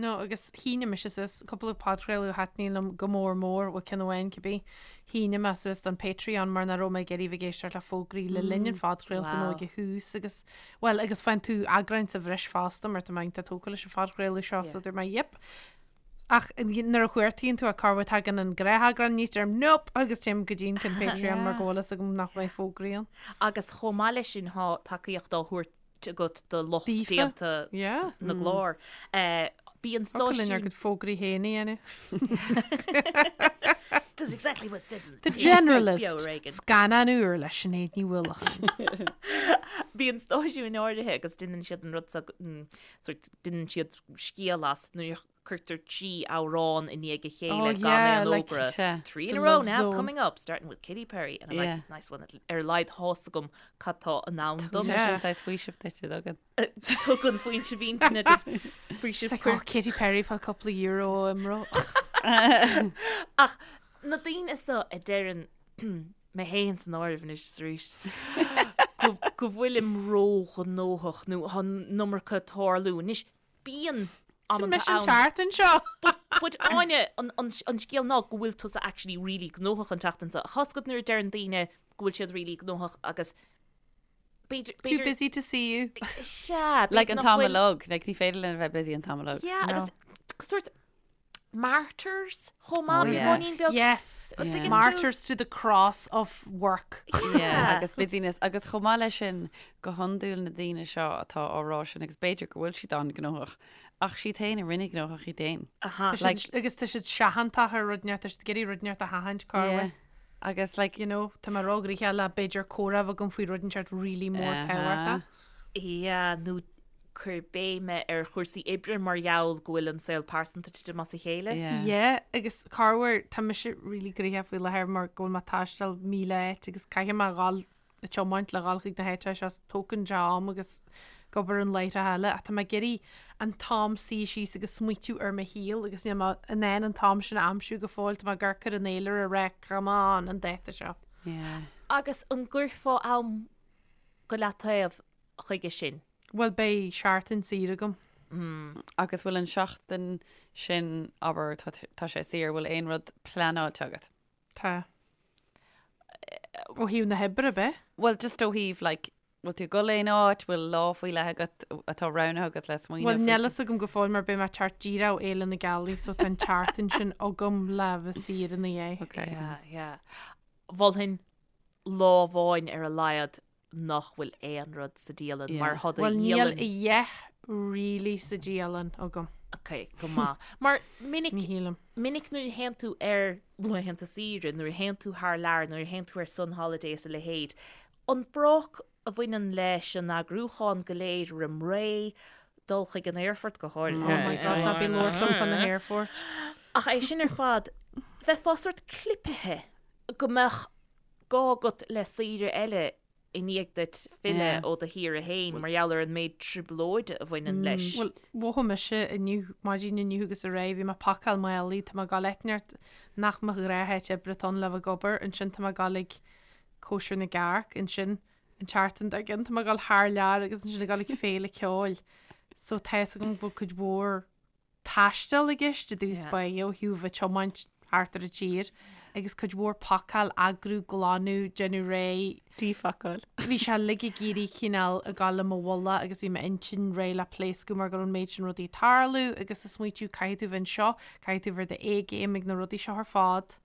No, agus shínigh mise suas cúpla podchraoladh a thaitníonn liom go mór mór, bhuel ceann amháin cibé, shínigh mé suas don Patreon mar nach raibh mé ag iarraidh bheith ag éisteacht le fógraí le linn an phodchraolta nó ag a thús agus, bhuel, agus faigheann tú eagráin sa bhreis fosta mar tá mé iontach tógtha leis an phodchraoladh seo so dúirt mé yep, Ach nuair a chuartaíonn tú corruair tagann an gnátheagrán aníos deirim nope agus téim go dtí an ceann Patreon mar go bhfuil fhios agam nach mbeidh fógraí ann. Agus chomh maith leis sin tá tacaíocht á thabhairt agat do lucht déanta na gclár. Bíonn stáisiún. Thiocfadh linn ár gcuid fógraí féin a dhéanamh. Does exactly what it says in the tin. The Generalist, scannán úr le Sinéad Ní Uallacháin. Bíonn stáisiúin áirithe agus déanann siad an rud seo, sort déanann siad scéal as nuair a cuirtear 3 amhrán i ndiaidh a chéile Oh gan yeah, aon like, fhógra. Sea. 3 in The a row Love now Zone. coming up, starting with Katy Perry and I'm Yeah. like, nice one. Ar a laghad tá's agam cad tá i ndán dom. Tugann sé Yeah. sin saghas faoiseamh duit, an dtugann. Tugann faoiseamh intinne agus It's faoiseamh like, cuir oh, Katy Perry fá cúpla euro imro. Ach na daoine seo a deireann mé féin san áireamh anois is arís, go go bhfuilim róghnóthach nó tá an iomarca ag tarlú. Anois, bíonn Sin amanta mise an ann. tseachtain seo. But, but Áine, an, an, an scéal ná go bhfuil tusa actually really gnóthach an tseachtain seo. Tá's agat nuair a deireann daoine go bhfuil siad really gnóthach agus b'fhéidir, Too b'fhéidir, busy to see you. sea, Like b'fhéidir an nach t-am bhfuil, uilig, like ní féidir linn a bheith busy an t-am uilig. yeah, No. agus sort martyrs chomh maith, Oh, yeah. beagáinín beag. Yes. An dtuigeann tú? Martyrs to the cross of work. Yeah, agus busyness. Agus chomh maith leis sin, go hiondúil na daoine seo atá á rá sin, agus b'fhéidir go bhfuil siad an-ghnóthach, ach siad féin a rinne gnóthach iad féin. Aha. Tá siad- Like- agus tá siad seachantach ar rud inteacht, tá siad ag iarraidh rud inteacht a sheachaint corruair. Yeah. Agus like, You know, tá mé róghnoitheach le b'fhéidir comhrá a bheith agam faoi rud inteacht really mór Aha. tábhachtach. Yeah, nó cur béime ar chúrsaí oibre mar gheall go bhfuil an saol pearsanta ag titim as a chéile. Yeah. Yeah, agus corruair, tá mise really gnoitheach faoi láthair mar go bhfuil mé ag taisteal 1,000 áit agus caithfidh mé a dhul ag tiomáint le dhul chuig na háiteacha seo, tógann sé am agus ag obair an láithreacha eile ach tá mé ag iarraidh an t-am suí síos agus smaoitiú ar mo shaol agus níl mé in ann an t-am sin a aimsiú go fóill, tá mé ag amharc ar an fhéilire ag rá come on an dáta seo. Yeah. Agus an gcuirfeá am go leataobh chuige sin? Bhuel, beidh seachtain saor agam. Agus bhfuil an seachtain sin, abair, tá sé saor, bhfuil aon rud pleanáilte agat? Tá. Ó thaobh na hoibre, ab ea? Bhuel, just ó thaobh, like, bhfuil tú ag dul aon áit, bhfuil lá faoi leith agat atá roghnaithe agat le smaoineamh Bhuel, faoi? níl fhios agam go fóill mar beidh mé ag teacht díreach ó Fhéile na Gealaí so tá an tseachtain sin agam le bheith saor ina dhiaidh. Okay. Yeah, yeah. Mholfainn lá amháin ar a laghad nach bhfuil aon rud sa dialann Yeah. mar thá do Bhuel, níl dhialann. a dhath really sa dialann agam. Ok, go maith. Mar minic, Ní shílim. minic nuair a théann tú ar laethanta saoire, nuair a théann tú thar lear, nuair a théann tú ar sun holiday is a leithéid, an bróc a bhaineann leis an eagrúchán go léir roim ré, dul chuig an aerfort go háirithe. Oh my God, ná bí ag labhairt liom fá na haerfoirt. Ach é sin ar fad, bheifeá sort clipithe go mbeadh gá agat le saoire eile i ndiaidh duit filleadh ó do shaoire féin mar gheall ar an méid trioblóide a bhaineann leis. Bhuel, mhothaigh mise inniu, maidin inniu agus aréir, bhí mé ag pacáil málaí, tá mé ag dul áit inteacht nach mo ghnátháit oibre atá ann le bheith ag obair, ansin tá mé ag dul ag cóisir na gcearc, ansin an tseachtain dár gcionn tá mé ag dul thar lear agus ansin ag dul ag féile ceoil. So tá fhios agam go bhfuil cuid mhór taisteal i gceist i dtús báire ó thaobh bheith ag tiomáint thart ar an tír agus cuid mhór pacáil, eagrú, glanadh, déanamh réidh. Díphacáil. Bhí sé uilig ag éirí cineál ag gabháil i mo mhullach agus bhí m'intinn réidh le pléascadh mar go raibh an méid sin rudaí ag tarlú agus ag smaoitiú caithfidh tú bheith anseo, caithfidh tú bheith ar do A-game ag na rudaí seo ar fad.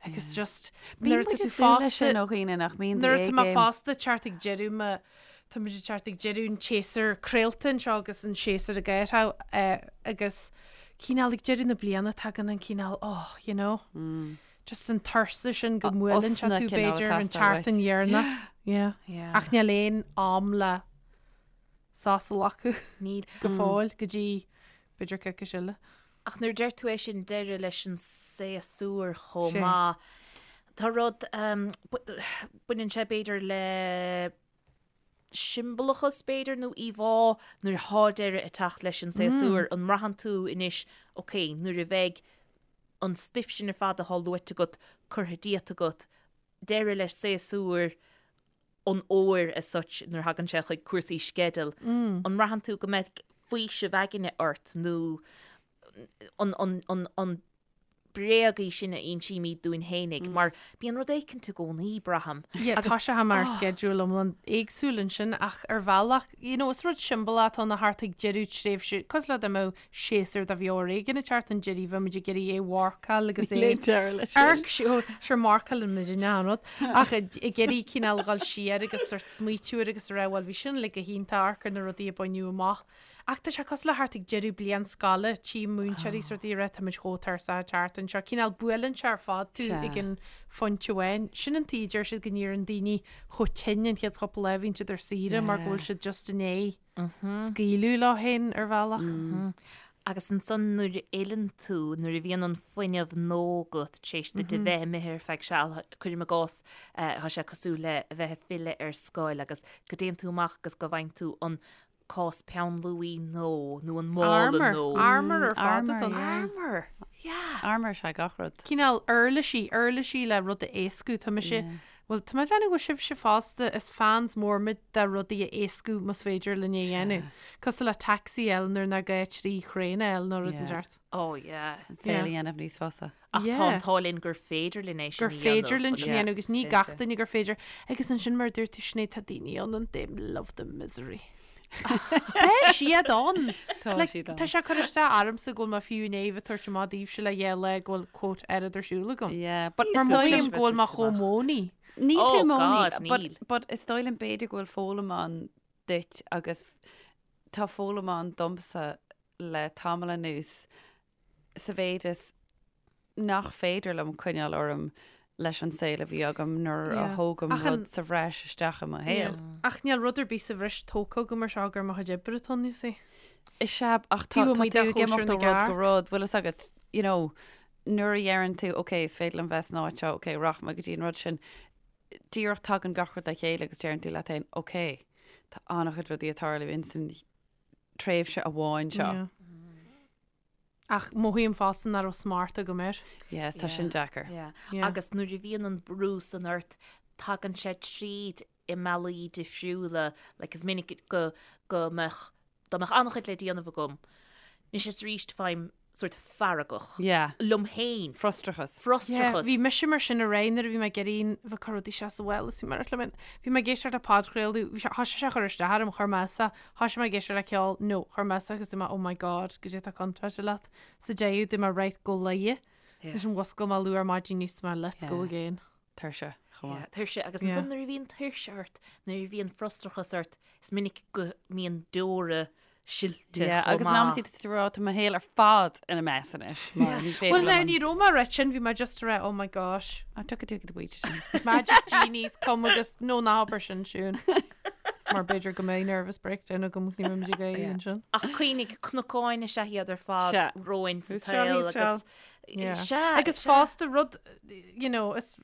Agus just nuair atá tú fásta ó dhaoine nach mbíonn nuair atá mé fásta teacht ag deireadh mo tá muid ag teacht ag deireadh an tséasúr craolta anseo agus an séasúr ag éirigh agus cineál ag deireadh na bliana tagann an cineál oh you know mm. just an tuirse sin go mbuaileann sé tú b'fhéidir an tseachtain dheireanach yeah. yeah. ach níl aon am le sos a ghlacadh Níl go fóill go dtí b'fhéidir coicís eile. Ach nuair a deir tú é sin, deireadh leis an séasúr chomh maith. Tá rud, baineann sé b'fhéidir le siombalachas b'fhéidir nó íomhá nuair atá deireadh ag teacht leis an séasúr, an mbraitheann tú anois, ok, nuair a bheidh an stuif sin ar fad atá luaite agat curtha díot agat, deireadh leis séasúr an fhómhair as such nuair a thagann sé chuig cúrsaí sceidil, an mbraitheann tú go mbeidh faoiseamh aigne ort nó an, an, an, an bréag í sin a insímid dúinn fhéinig, mar bíonn rud éicint i gcónaí, braithim. Yeah, tá sé mar schedule iomlán éagsúil ansin ach ar bhealach, you know, is rud siombalach atá ann a theacht ag deireadh tréimhse, cosúil le dá mbeadh séasúr de leabhar éigin ag teacht chun deiridh, bheadh muid ag iarraidh é a mharcáil agus é deireadh leis sin. Arc, sure, marcálann muid an rud, ach ag iarraidh cineál dhul siar agus sort smaoitiú air agus a rá, bhuel, bhí sin uilig go hiontach, amharc ar na rudaí a baineadh amach. Ach tá sé cosúil le theacht ag deireadh bliain scoile, tchím múinteoirí sort ag rá táimid chomh tuirseach ag teacht anseo. Cineál buaileann sé ar fad tú ag an phointe amháin. Sin an tuige a deir siad go n-éiríonn daoine chomh tinn an chéad chúpla lá a bhíonn siad ar saoire mar go bhfuil siad just i ndiaidh scaoileadh leo féin ar bhealach. Agus ansan nuair a fhilleann tú, nuair a bhíonn an fuinneamh nua agat tar éis duit a bheith imithe ar feadh seal, cuirim i gcás, tá sé cosúil le a bheith ag filleadh ar scoil agus go dtéann tú amach agus go bhfaigheann tú an cás peann luaidhe nua nó an mála Armour. nua. Armour ar fad Armour, atá ann. yeah. Armour, yeah. Armour is ea gach rud. Cineál uirlisí, uirlisí le rud a éascú. Tá mise, Yeah. bhuel, tá mé ag déanamh go bhfuil sibhse fosta, is fans mór muid de rudaí a éascú más féidir linn é a dhéanamh. Cosúil le taxi a fháil nuair nach gá trí thraein a fháil nó rud Yeah. inteacht. Oh yeah. An saol a dhéanamh níos fusa. Ach Yeah. tá an t-ádh linn gur féidir linn é sin gur a dhéanamh. féidir linn sin a agus- dhéanamh agus ní gach duine gur féidir. Agus ansin mar a dúirt tú Sinéad, tá daoine ann and they love the misery. Tá siad ann! Tá Like, siad ann. Tá sé ag cur isteach ormsa go bhfuil mé fiú i ndiaidh bheith ag tabhairt amach daoibhse le dhá lá go bhfuil quote oiread ar siúl agam. Yeah, but Mar is dóigh mothaím liom go bhfuil mé chomh moany. Níl Oh tú moany, God, but, níl. but is dóigh liom b'fhéidir go bhfuil foghlaim ann duit agus tá foghlaim ann domsa le tamall anuas sa mhéid is nach féidir liom coinneáil orm leis an saol a bhí agam nuair a thógaim rud sa bhreis isteach i mo shaol. Ach níl rud ar bith sa bhreis tógtha agam mar seo gur mo chuid oibre atá ann, you see. Is ea, ach tá Taobh amuigh tú de ag chóisir imeacht na ó rud go gcearc. rud, bhfuil fhios agat, you know, nuair a dheireann tú, ok, is féidir liom bheith san áit seo, ok, rachaidh mé go dtí an rud sin, díreach tagann gach rud le chéile agus deireann tú leat féin, ok, tá an-chuid rudaí ag tarlú ins an tréimhse amháin seo. Yeah. Ach mothaím fosta nach raibh smacht agam air. Yes, tá sin deacair. Yeah. Yeah. Agus nuair a bhíonn an brú san ort, tagann sé tríd i mbealaí difriúla, like is minic go, go mbeadh, dá mbeadh an-chuid le déanamh agam, anois is arís faighim sort feargach. Yeah. Liom féin. Frustrachas. Frustrachas. Yeah, bhí mise mar sin aréir nuair a bhí mé ag iarraidh bheith ag cur rudaí isteach sa bhfuil is bhí mé ar le bhí mé ag éisteacht le podchraoladh, bhí sé, thoisigh sé a chur isteach orm, chuir mé as é, Thoisigh mé ag éisteacht le ceol, no, chuir mé as agus dúirt mé oh my god, goidé atá contráilte leat. Sa deireadh dúirt mé right, go luighe. Yeah. Ansin mhuscail mé luath ar maidin níos mé let's go Yeah. again. Tuirse, chomh maith. Yeah. Tuirse agus Yeah. ansan nuair a bhíonn tuirse ort, nuair a bhíonn frustrachas ort, is minic go mbíonn deora silte Yeah, chomh agus maith. in amantaí tá tú ag rá tá mo shaol ar fad ina mess anois mar ní féidir Well now liom an- ní raibh mé ag rá sin, bhí mé just ag rá oh my gosh. Ah, tugadh tú go bhfuil sin. Magic genies come agus no ná habair sin Siún. Mar b'fhéidir go mbeidh nervous breakdown agam agus ní bheidh muid ag éirí Yeah. ansin. Ach cuimhnigh, cnocáin is ea iad ar fad Sea. romhainn sa Who's seal, tsaol he's seal. agus Yeah. Sea, Agus sea. fosta rud, you know, is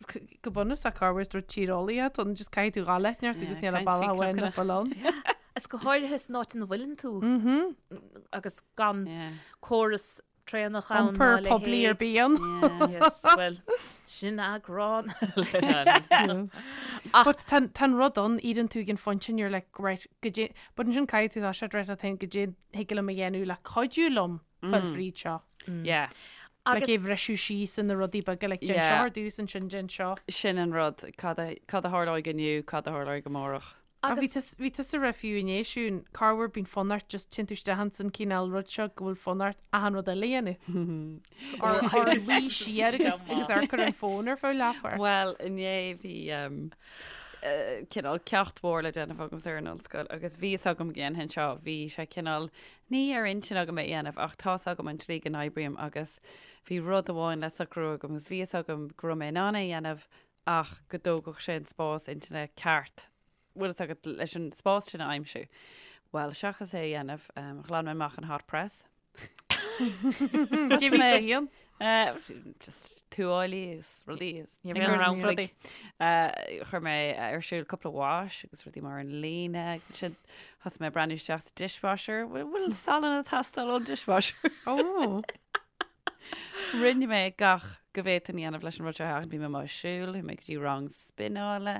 go bunúsach corruair is rud tíreolaíoch atá ann, just caithfidh tú dhul leat neart agus Yeah, níl caint bealach faoi amháin cnocanna. nach bhfuil ann. Is go háirithe san áit ina bhfuileann tú agus gan córas traenach ann ná Iompar a poiblí ar leithéid. bith ann. Yes, well, sin eagrán eile. Ach But tá tá an rud ann, éiríonn tú ag an phointe and you're like, right, goidé, but ansin caithfidh tú tá sé right a think goidé thig liom a dhéanamh le cuidiú liom fáil fríd seo. Yeah. Like agus é bhriseadh síos ina rudaí beaga, like déan Yeah. seo ar dtús ansin déan seo. Sin an rud, cad a cad a tharlóidh inniu, cad a tharlóidh amárach. Ach bhí Agus. bhí tusa ag rá fiú inné Siún, corruair bíonn fonn ort just téann tú isteach ins an cineál rud seo go bhfuil fonn ort achan rud eile a dhéanamh. Or or luí siar agus agus amharc ar an fón ar feadh leathuair. Bhuel, inné bhí um, uh, cineál ceacht mhór le déanamh agamsa ar an ollscoil agus bhí fhios agam go ndéanfainn seo, bhí sé cineál ní ar intinn agam é a dhéanamh ach tá's agam an tslí go n-oibrím agus bhí rud amháin le socrú agam agus bhí fhios agam go raibh mé in ann é a dhéanamh ach go dtógfadh sé an spás intinne ceart, bhfuil fhios agat, leis an spás sin a aimsiú. Bhuel, seachas é a dhéanamh, ghlan mé amach an hot press. Jimmy sa haon. Just tuáillí agus rudaí agus Ní raibh aon rudaí. Chuir mé ar siúl cúpla wash agus rudaí mar an líne agus ansin thosaigh mé ag breathnú isteach sa dishwasher. Bhfuil salann ag teastáil ón dishwasher? Ó. Rinne mé gach go bhféadfainn a dhéanamh leis an rud seo a sheachaint. Bhí mé amuigh ag siúl, chuaigh mé go dtí rang spineála.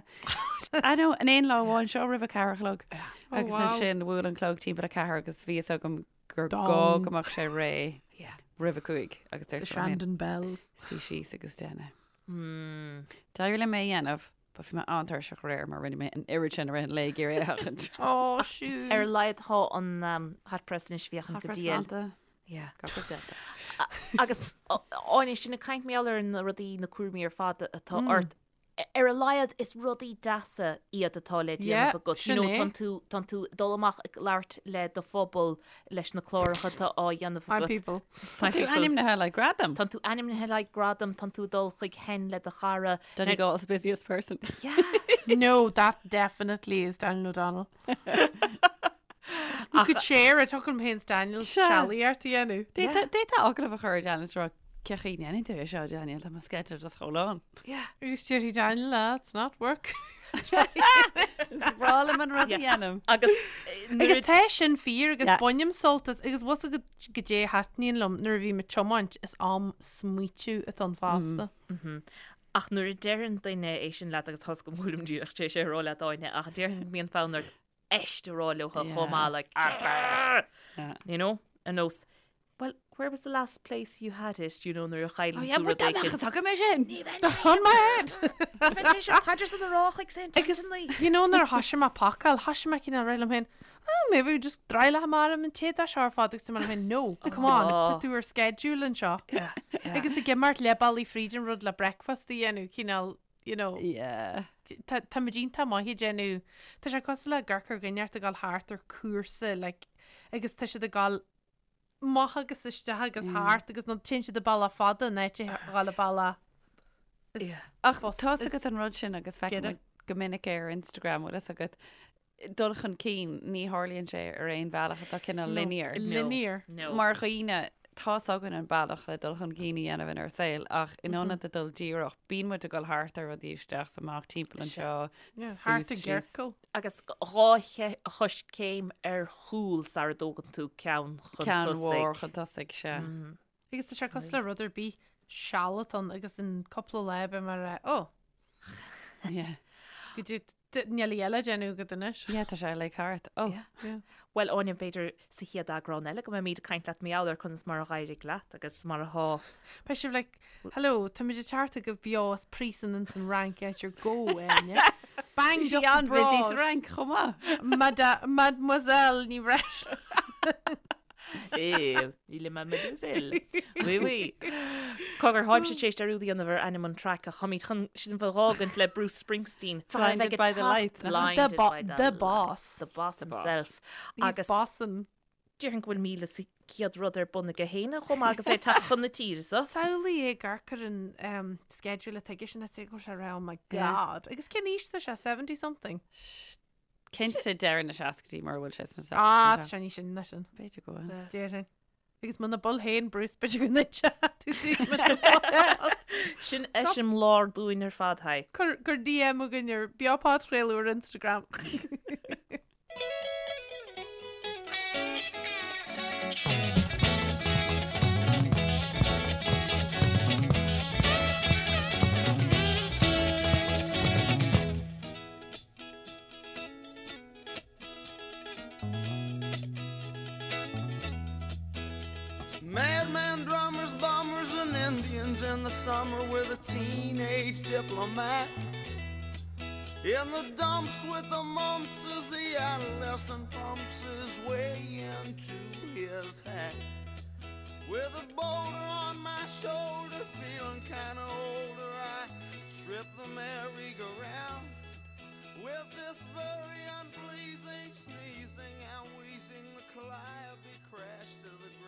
I know, in aon lá amháin seo roimh a ceathair a chlog. Oh, Agus wow. ansin bhuail an clog timpeall a ceathair agus bhí fhios agam gur gá Dong. go mbeadh sé réidh roimh a cúig agus The dúirt mé liom féin, Shandon Bells. suigh síos agus déan é. D'éirigh liom é a dhéanamh, but bhí mé an-tuirseach aréir mar rinne mé an oiread sin i rith an lae ag iarraidh é a sheachaint. Ó, siúd. Ar a laghad tá an hot press anois féachaint go diail. Yeah. Gach rud déanta. Agus Áine, sinn ag caint mar gheall ar na rudaí, na cúraimí ar fad atá ort. Ar a laghad is rudaí deasa iad atá le déanamh agat. You know, tánn tú, tánn tú ag dul amach ag labhairt le do phobal leis na cláracha atá á dhéanamh My agat. people. Tá tú ainmnithe le gradam. Tánn tú ainmnithe le gradam, tánn tú ag dul chuig hen le do chara. Donegal's busiest person. Yeah. No, that definitely is Daniel O'Donnell. You could share it, tugann féin Daniel sealaíocht a dhéanamh. D'fhéadfá agallamh a chur ar Daniel is rá cén chaoi a ndéanann tú é seo Daniel, tá mo schedule just chomh lán. Agus déarfaidh Daniel, ah, it's not work. Is breá liom an rud a dhéanaim. Agus Agus tá sin fíor agus Yeah. bainim sult as agus bhfuil a fhios agat goidé a thaitníonn liom nuair a bhím ag tiomáint is am smaoitiú atá ann fosta. Ach nuair a deireann duine é sin leat agus tá's agam go bhfuilim díreach tar éis é a rá leat Áine ach déarfainn go mbíonn fonn ort eist a rá leo chomh maith like you know ar nós well where was the last place you had it you know nuair a chailleann tú rud éicint. Tugann mé sin. On my head! Rá chuig Saint Agus you know nuair a thoisigh mé pacáil thoisigh mé cineál rá liom féin oh maybe we just dry le hamar an té dá seo ar fad agus mé féin no come on tá tú ar schedule anseo agus ag imeacht leath bealaigh fríd an rud le breakfast a dhéanamh cineál you know Yeah. Tá tá muid iontach maith ag déanamh tá sé cosúil le ag amharc ar dhuine ag dul thart ar cúrsa like agus tá siad ag dul amach agus isteach agus thart agus nó téann siad an bealach fada in áit a dhul an bealach is Ach fus- tá's is agat an rud sin agus feicim giorra. go minic é ar Instagram bhfuil fhios agat dul chun cinn ní tharlaíonn sé ar aon bhealach atá cineál No. linear. Linear. No. Mar dhaoine tá's againn an bealach le dul chun cinn a dhéanamh inár saol ach in ionad a dul díreach bíonn muid ag dul thart ar rudaí isteach is amach timpeall anseo Yeah, suas thart i síos. gciorcal. Agus dhá choiscéim ar chúl sara dtógann tú ceann chun Ceann mhór tosaigh. chun tosaigh, sea. Agus tá sé cosúil le rud ar bith seal atá ann agus in cúpla lá beidh mé ag rá oh Yeah. go dtí níl a eile déanamh agat anois. Yeah, tá sé like thart. Oh. Yeah. Yeah. Bhuel, Áine, b'fhéidir sa chéad eagrán eile go mbeimid ag caint leat mar gheall ar conas mar a d'éirigh leat agus mar atá. Beidh sibh like, hello, táimid ag teacht chugaibh beo as príosún ins an Fhrainc áit ar gabhadh Áine. Banged Bhí sí up an-busy sa abroad. Fhrainc chomh maith. Mada- Mademoiselle Ní Bhreisleáin. Eh, il est mademoiselle. Oui, oui. Cogar, tháimse tar éis dearúd a dhéanamh ar ainm an traic ach táimid chun sin bheith dh'fhágaint le Bruce Springsteen. Blinded by the lights, nach ea? The Blinded bo- by the the lights. boss. The boss The boss. himself. He's Agus bossin. déarfainn go bhfuil 1,100 rud ar bun aige féin chomh maith agus é ag teacht chun na tíre so. Samhlaigh é ag amharc ar an um, schedule atá aige sin a go sé oh my Yeah. god. Agus cén aois tá sé 70 something? Cinnte deireadh na seascaidí mura bhfuil sé sna Ah, seascaidí. tá sé níos sine ná sin. B'fhéidir go bhfuil. Déarfainn. Agus muna bhfuil féin Bruce b'fhéidir go n-inseoidh tú dúinn muna bhfuil. Sin eiseamláir dúinn ar fad, haigh. Cuir cuir DM chugainn ar Beo Podchraoladh ar Instagram. Madman drummers, bombers, and Indians in the summer with a teenage diplomat. In the dumps with the mumps as the adolescent pumps his way into his hat. With a boulder on my shoulder, feeling kinda older, I trip the merry-go-round. With this very unpleasing sneezing and wheezing, the calliope crashed to the ground.